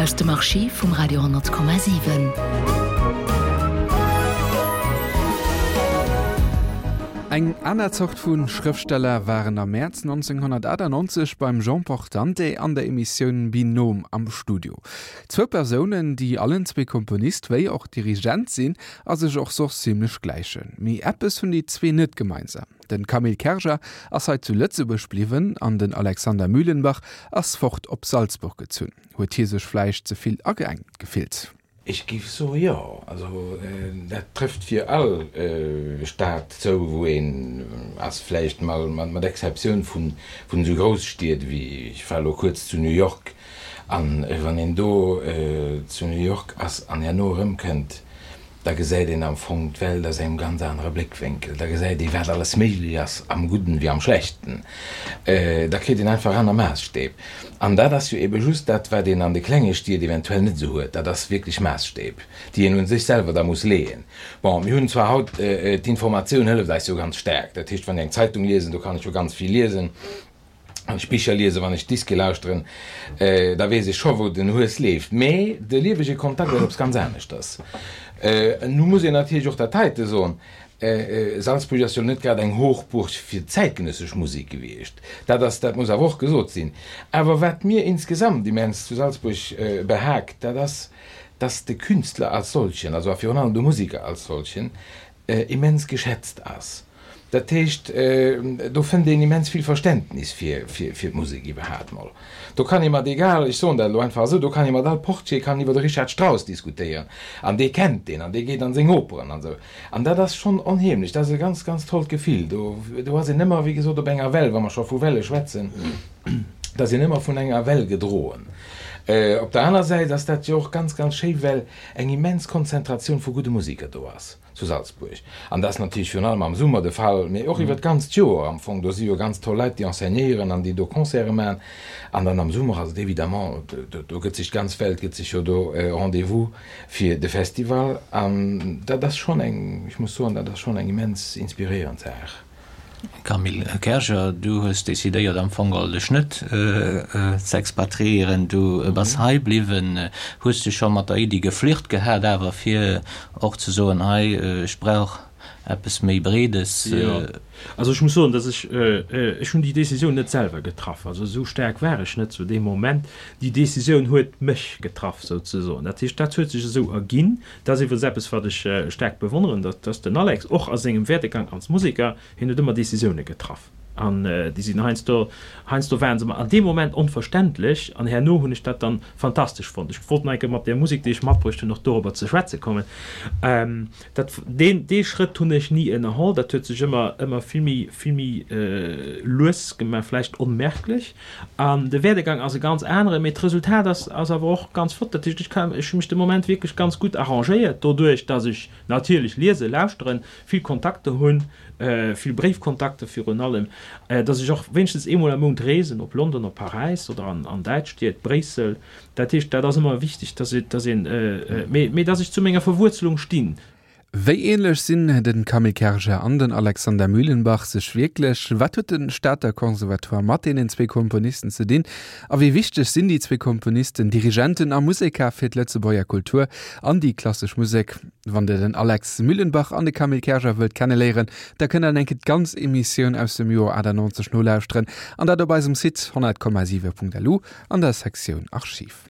Aus dem Archiv vum Radio 10,7. Eng aner Zort vu Schrëftsteller waren am Mäerz 1998 beim Jean Portante an der Emissioun Binôme am Studio. Zwou Persounen, déi allen zwee Komponist wéi och Dirigent sinn a sech och soss zimmlech gläichen. Mee eppes hunn déi zwee net gemeinsam. Den Camille Kerger ass hei zu Lëtzebuerg bliwwen an den Alexander Mühlenbach ass fort op Salzburg gezunn. Huet hie sech vläicht ze vill ageengt gefillt? Ech géif soe jo. Also dat trëfft fir all Stad zou, wou een ass, vläicht mol mat Exceptioun vun esou Grousstied wéi, ech war elo kuerz zu New York, an wann een do zu New York ass an herno erëmkënnt, Da gesäit een am Fong d'Welt aus engem ganz anere Bléckwénkel. Da gesäit ee wat alles méiglech ass, am Gudden wéi am Schlechten. Da kritt een einfach aner Maasstäb. An dat ass jo ebe just dat, wat een an de klenge Stied eventuell net esou huet. Dat ass wierklech Maasstäb, déi een un sech selwer da muss leeën. Bon, mir hunn zwar haut, d'Informatioun hëlleft eis jo ganz staark. Dat heescht, wann ech eng Zeitung liesen, do kann ech jo ganz vill liesen. Wann ech Bicher liesen, wann ech Diske lauschteren, da weess ech scho wou den Hues leeft. Mee de liewege Kontakt ass eppes ganz aneschters. Nu muss een natierlech och dat heite soen, Salzburg ass jo net grad eng Hochburg fir zäitgenëssesch Musek gewiescht. Dat ass, dat muss awer och gesot sinn. Awer wat mir insgesamt immens zu Salzburg behaagt, dat ass, dass de Künstler als solchen, also a virun allem de Musiker als solchen, immens geschätzt ass. Dat heescht, do fënnt een immens vill Verständnis fir d'Musek iwwerhaapt mol. Do kann ee mat egal, ech soen dat elo einfach esou, do kann ee mat all Portier kann iwwer de Richard Strauss diskutéieren an dee kennt deen an dee geet an seng Operen an esou. An dat ass schonn onheemlech, dat ass e ganz, ganz tollt Gefill. Do, do ass een ëmmer, wéi gesot, op enger Well, wa mer scho vu Welle schwätzen, da ass een ëmmer vun enger Well gedroen. Op der aner Säit ass dat jo och ganz, ganz schéi, well eng immens Konzentratioun vu gudde Museker do ass zu Salzburg. An dat ass natierlech virun allem am Summer de Fall, mee och iwwer d'ganzt Joer am Fong. Do si jo ganz toll Leit, déi enseignéieren an déi do Concerte maachen. An dann am Summer ass et évidemment, do gëtt sech d'ganz Welt gëtt sech jo do Rendez-vous fir de Festival. An dat ass schonn eng, ech muss soen, dat ass schonn eng immens inspiréierend Saach. Camille Kerger, du hues decidéiert am Fong geholl dech net ze expatriéieren, du bass hei bliwwen. Hues du scho mat der Iddi geflirt gehat awer fir och ze soen, hei ech brauch eppes méi Breedes? Jo, also ech muss soen, datt ech, ech hunn déi Decisioun net selwer getraff, also esou staark war ech net zu deem Moment. Déi Decisioun huet mech getraff souzesoen. Dat heescht, dat huet sech esou erginn. Dat ass iwwregens eppes, wat ech staark bewonneren, datt dass den Alex och a sengem Werdegang als Museker, hien huet ëmmer Decisioune getraff an déi sinn heiansdo, heiansdo waren se mer an deem Moment onverständlech an herno hunn ech dat dann fantastesch fonnt. Ech wollt nach eng Kéier mat där Musek, déi ech matbruecht hunn, och dorobber ze schwätze kommen. Dat, deen, dee Schrëtt hunn ech ni ënnerholl, dat huet sech ëmmer, ëmmer vill méi, vill méi lues gemaach, vläicht onmerklech. An de Werdegang ass e ganz aneren, mee d'Resultat ass ass awer och ganz flott. Dat heescht, ech kann, ech hu mech de Moment wierklech ganz gutt arrangéiert, doduerch datt ech natierlech liese, lauschteren, vill Kontakter hunn, vill Bréifkontakter virun allem, datt ech och wéinstens eemol am Mount reesen, op London, op Paräis oder an an däitsch Stied, Bréissel. Dat heescht, dat ass ëmmer wichteg, datt datt een, mee mee datt ech zu menger Verwuerzelung stinn. Wéi ähnlech sinn den Camille Kerger an den Alexander Mühlenbach sech wierklech? Wat huet de Stater Conservatoire mat deenen zwee Komponisten ze dinn? A wéi wichteg sinn déi zwee Komponisten, Dirigenten a Museker fir d'Lëtzebuerger Kultur an déi klassesch Musek? Wann der den Alex Mühlenbach an de Camille Kerger wëllt kenneléieren, da kënnt der enke d'ganz Emissioun aus dem Joer 98 nolauschteren, an dat op eisem Site 100,7.lu an der Sektioun Archiv.